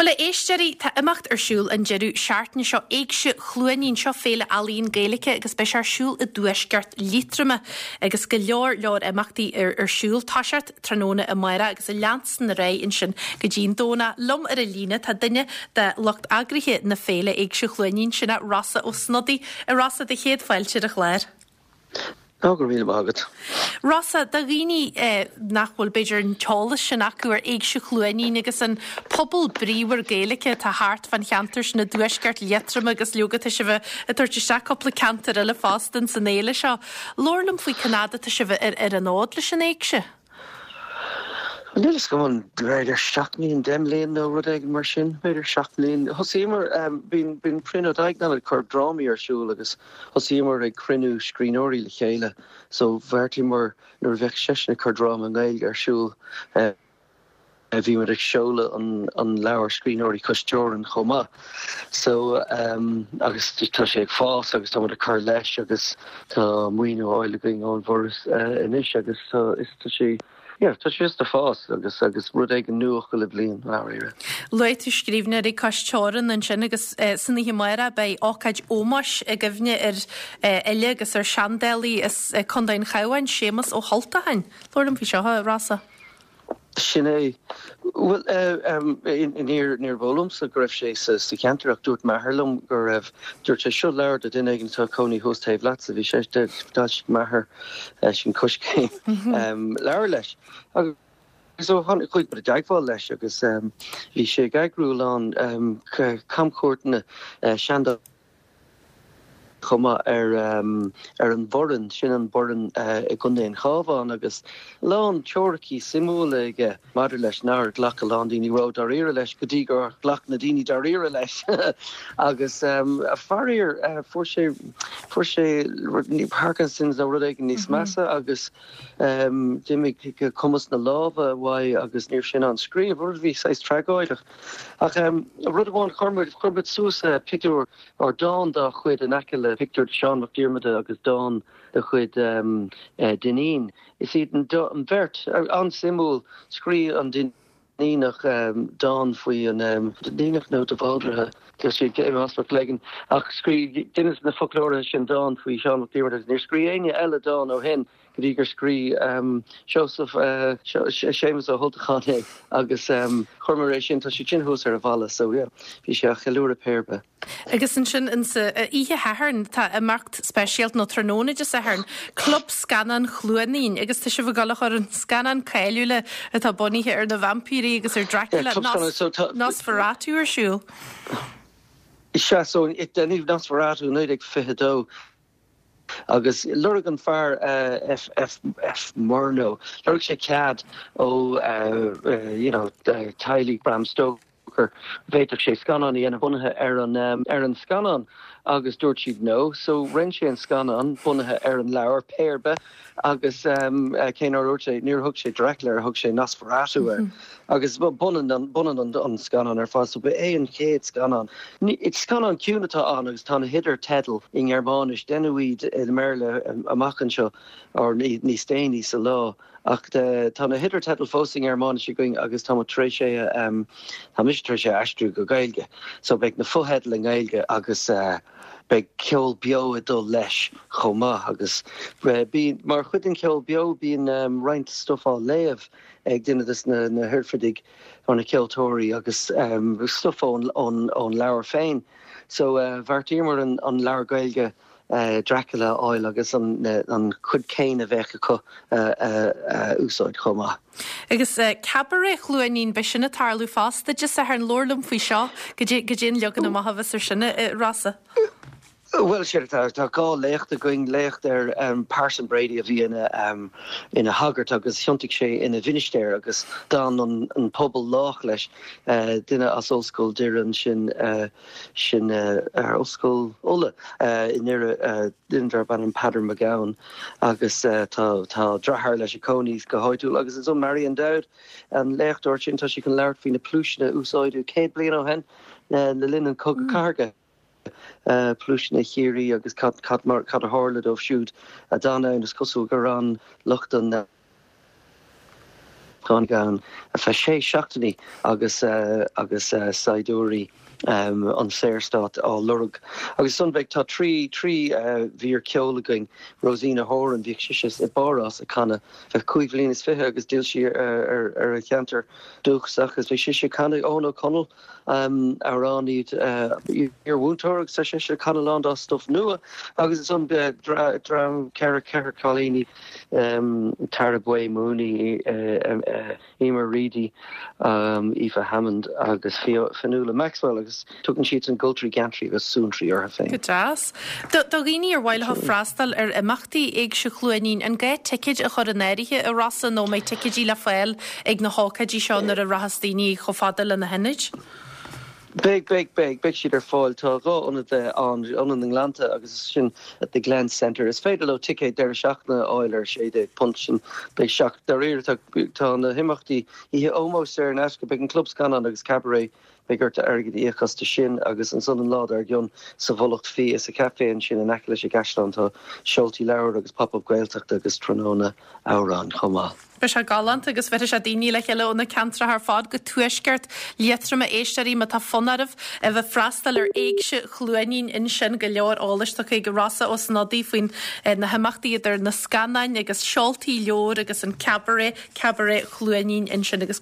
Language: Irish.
Bhuel, a éisteoirí, tá imeacht ar siúl an deireadh seachtaine seo, Éigse Chluainín, seo féile ealaíon Gaeilge agus beidh sé ar siúl i dtuaisceart Liatroma agus go leor leor imeachtaí ar ar siúl. Toiseacht tráthnóna amárach agus ag leanstan ar aghaidh ansin go dtí an Domhnach. Liom ar an líne tá duine de lucht eagraithe na féile Éigse Chluainín, sin é Rossa Ó Snodaigh. A Rossa, do chéad fáilte ar an chlár. Ó, go raibh míle maith agat. Rossa, do dhaoine nach bhfuil b'fhéidir an t-eolas sin acu ar Éigse Chluainín agus an pobal bríomhar Gaeilge atá thart fán cheantar sin i dtuaisceart Liatroma agus leoga tá sibh ag tabhairt isteach cúpla ceantar eile fosta ins an fhéile seo. Labhair liom faoi cén fhad atá sibh ar ar an fhód leis an Éigse. Níl a fhios agam an b'fhéidir 7 mbliana, 10 mbliana nó rud éigin mar sin, b'fhéidir 7 mbliana. Thosaíomar, bíonn bíonn Brian Ó Duigneáin ag cur drámaí ar siúl agus thosaíomar ag cruinniú scríbhneoirí le chéile so bheartaíomar nuair a bheadh seisean ag cur dráma i nGaeilge ar siúl bhí muid ag seoladh an an leabhar Scríbhneoirí Cois Teorann chomh maith. So agus tá sé ag fás agus tá muid ag cur leis agus tá maoiniú á fháil againn ón bhForas anois agus tá is tá sé yeah tá sé just ag fás agus agus rud éigin nua chuile bhliain dáiríre. Luaigh tú Scríbhneoirí Cois Teorann ansin agus san oíche amárach beidh ócáid ómóis i gcuimhne ar fhile agus ar seandálaí as Contae an Chabháin, Séamus Ó hUltacháin. Labhair liom faoi seo, a Rossa. Sin é. Bhuel, níor níorbh eol liomsa go raibh sé sa cheantar ach dúirt m'athair liom go raibh. Dúirt sé, seo leabhar do duine éigin atá ag cónaí thuas taobh leatsa. Bhí sé, d'fhoilsigh m'athair sin Coiscéim leabhar leis. Agus ó tháinig, chuaigh muid i dteagmháil leis agus bhí sé ag eagrú a lán camchuairteanna seandálaíochta chomh maith ar ar an Bhoireann, sin an Boireann i gContae an Chabháin, agus a lán teoiricí suimiúla aige maidir leis nár ghlac a lán daoine ró-dáiríre leis go dtí gur ghlac na daoine dáiríre leis agus faraor fuair sé fuair sé Parkinson's nó rud éigin níos measa agus d'imigh cumas na láimhe uaidh agus ní raibh sé in ann scríobh, rud a bhí saghas tragóideach. Ach rud amháin, chuir muid chuir muid suas pictiúr or dán dá chuid in aice le pictiúr de Seán Mac Diarmada agus dán de chuid Dinneen. Is iad an bheirt, an-suimiúil, scríobh an Duinníneach dán faoi an Duinníneach nó de Bhaldraithe, tá sé ag Mac Lagan, ach scríobh duine de na foclóirithe sin dán faoi Sheán Mac Diarmada agus níor scríobh éinne eile dán ó shin go dtí gur scríobh Seosamh, Séamus Ó hUltacháin é agus chuireamar é sin, tá sé sin thuas ar an bhalla so yeah, bhí sé á cheiliúradh pé ar bith. Agus ansin insa oíche Shathairn tá imeacht speisialta, nó tráthnóna Dé Sathairn, Club Scannán Chluainín agus tá sibh ag dul a chur an scannán cáiliúil atá bunaithe ar na vaimpírí agus ar Dracula, Nosferatu ar siúl. Sea, so deineadh Nosferatu i 1922 agus lorg an fear F. F. F. Murnau, lorg sé cead ó you know teaghlaigh Bram Stoker, bhféadfadh sé scannán a dhéanamh bunaithe ar an ar an scannán agus dúirt siad no so rinne sé an scannán bunaithe ar an leabhar pé ar bith agus cé nár dúirt sé níor thug sé Dracula air thug sé Nosferatu air agus b'ionann an b'ionann an an scannán ar fad so ba é an chéad scannán. Scannán ciúin atá ann agus tá na hidirtheidil i nGearmáinis deineadh iad i mBéarla amach anseo or níos déanaí sa lá. Ach tá na hidirtheidil fós i nGearmáinis againn agus tá muid tar éis é a, tá mise tar éis é a aistriú go Gaeilge. So beidh na fotheidil i nGaeilge agus beidh ceol beo ag dul leis chomh maith agus bíonn, mar chuid den cheol beo bíonn roinnt stuif á léamh ag duine des na hoirfidigh nó na ceoltóirí agus stuif ón leabhar féin. So bheartaíomar an leabhar Gaeilge Dracula a fháil agus an chuid céanna a bheadh acu a úsáid chomh maith. Agus Cabaret Chluainín, beidh sin ag tarlú fosta Dé Sathairn. Labhair liom faoi seo, goidé an leagan amach a bheas ar sin, a Rossa. Bhuel, sin é, tá dhá léacht againn, léacht ar Parson Brady a bhí ina ina shagart agus thiontaigh sé ina mhinistéir agus d'fhan an pobal lách leis, duine as Ollscoil Doire ansin, sin ar Ollscoil Uladh i nDoire, duine darb ainm Peadar Mac Gabhann agus tá tá deartháir leis ag cónaí go háitiúil agus ansan Marion Dowd, an léachtóir sin, tá sí chun labhairt faoi na pluaiseanna a úsáideadh 100 bliain ó shin le linn an Chogadh Cathartha, pluaiseanna Chiarraí agus cad cad mar cad a tharla dóibh siúd a d'fhan ann. Is cosúil gur fhan lucht an. Tháinig ann ar feadh sé seachtainí agus agus saighdiúirí an Saorstát á lorg. Agus ansan beidh, tá trí, trí mhír ceoil againn, Rosina Horan, bhíodh sise i bPáras ag canadh feadh cúig bhliain is fiche agus d'fhill sí ar ar a cheantar dúchasach agus beidh sise ag canadh, Eoghan Ó Conaill, amhránaí, iar-mhúinteoir agus tá seisean ag canadh a lán dá stuif nua agus ansan dream, ceithre, ceithre cailíní, Tara Bué Mooney, Emer Reidy, Aoife Hammond agus Fionnuala Maxwell agus tugann siadsan Goltraí Geantraí agus Suantraí orthu féin. Go deas. Do dhaoine ar mhaith leo freastal ar imeachtaí Éigse Chluainín, an gá ticéid a chur in áirithe a Rossa nó an mbeidh ticéidí le fáil ag na hócáidí seo nuair a rachas daoine chomh fada le na hionaid? Beidh, beidh, beidh, beidh siad ar fáil. Tá dhá ionad ann, Ionad na nGleannta agus sin The Glen Centre. Is féidir leo ticéad deireadh seachtaine a fháil ar £16 sin. Beidh seacht, dáiríre, tá, tá na himeachtaí, oíche ómóis saor in aisce, beidh an Club Scannán agus Cabaret, beidh ort airgead a íoc astu sin agus ansan an lá dár gcionn sa Mhullach Fia sa chaifé ansin in aice leis an gcaisleán tá seoltaí leabhar agus pop-up Gaeltachta agus tráthnóna amhrán chomh maith. Beidh sé galánta agus bheirfidh sé daoine le chéile ó na ceantracha ar fad go tuaisceart Liatroma. Éisteoirí, má tá fonn oraibh a bheith freastal ar Éigse Chluainín ansin, go leor eolais tugtha ag Rossa Ó Snodaigh faoin na himeachtaí idir na scannáin agus seoltaí leabhar agus an cabaret, Cabaret Chluainín ansin agus.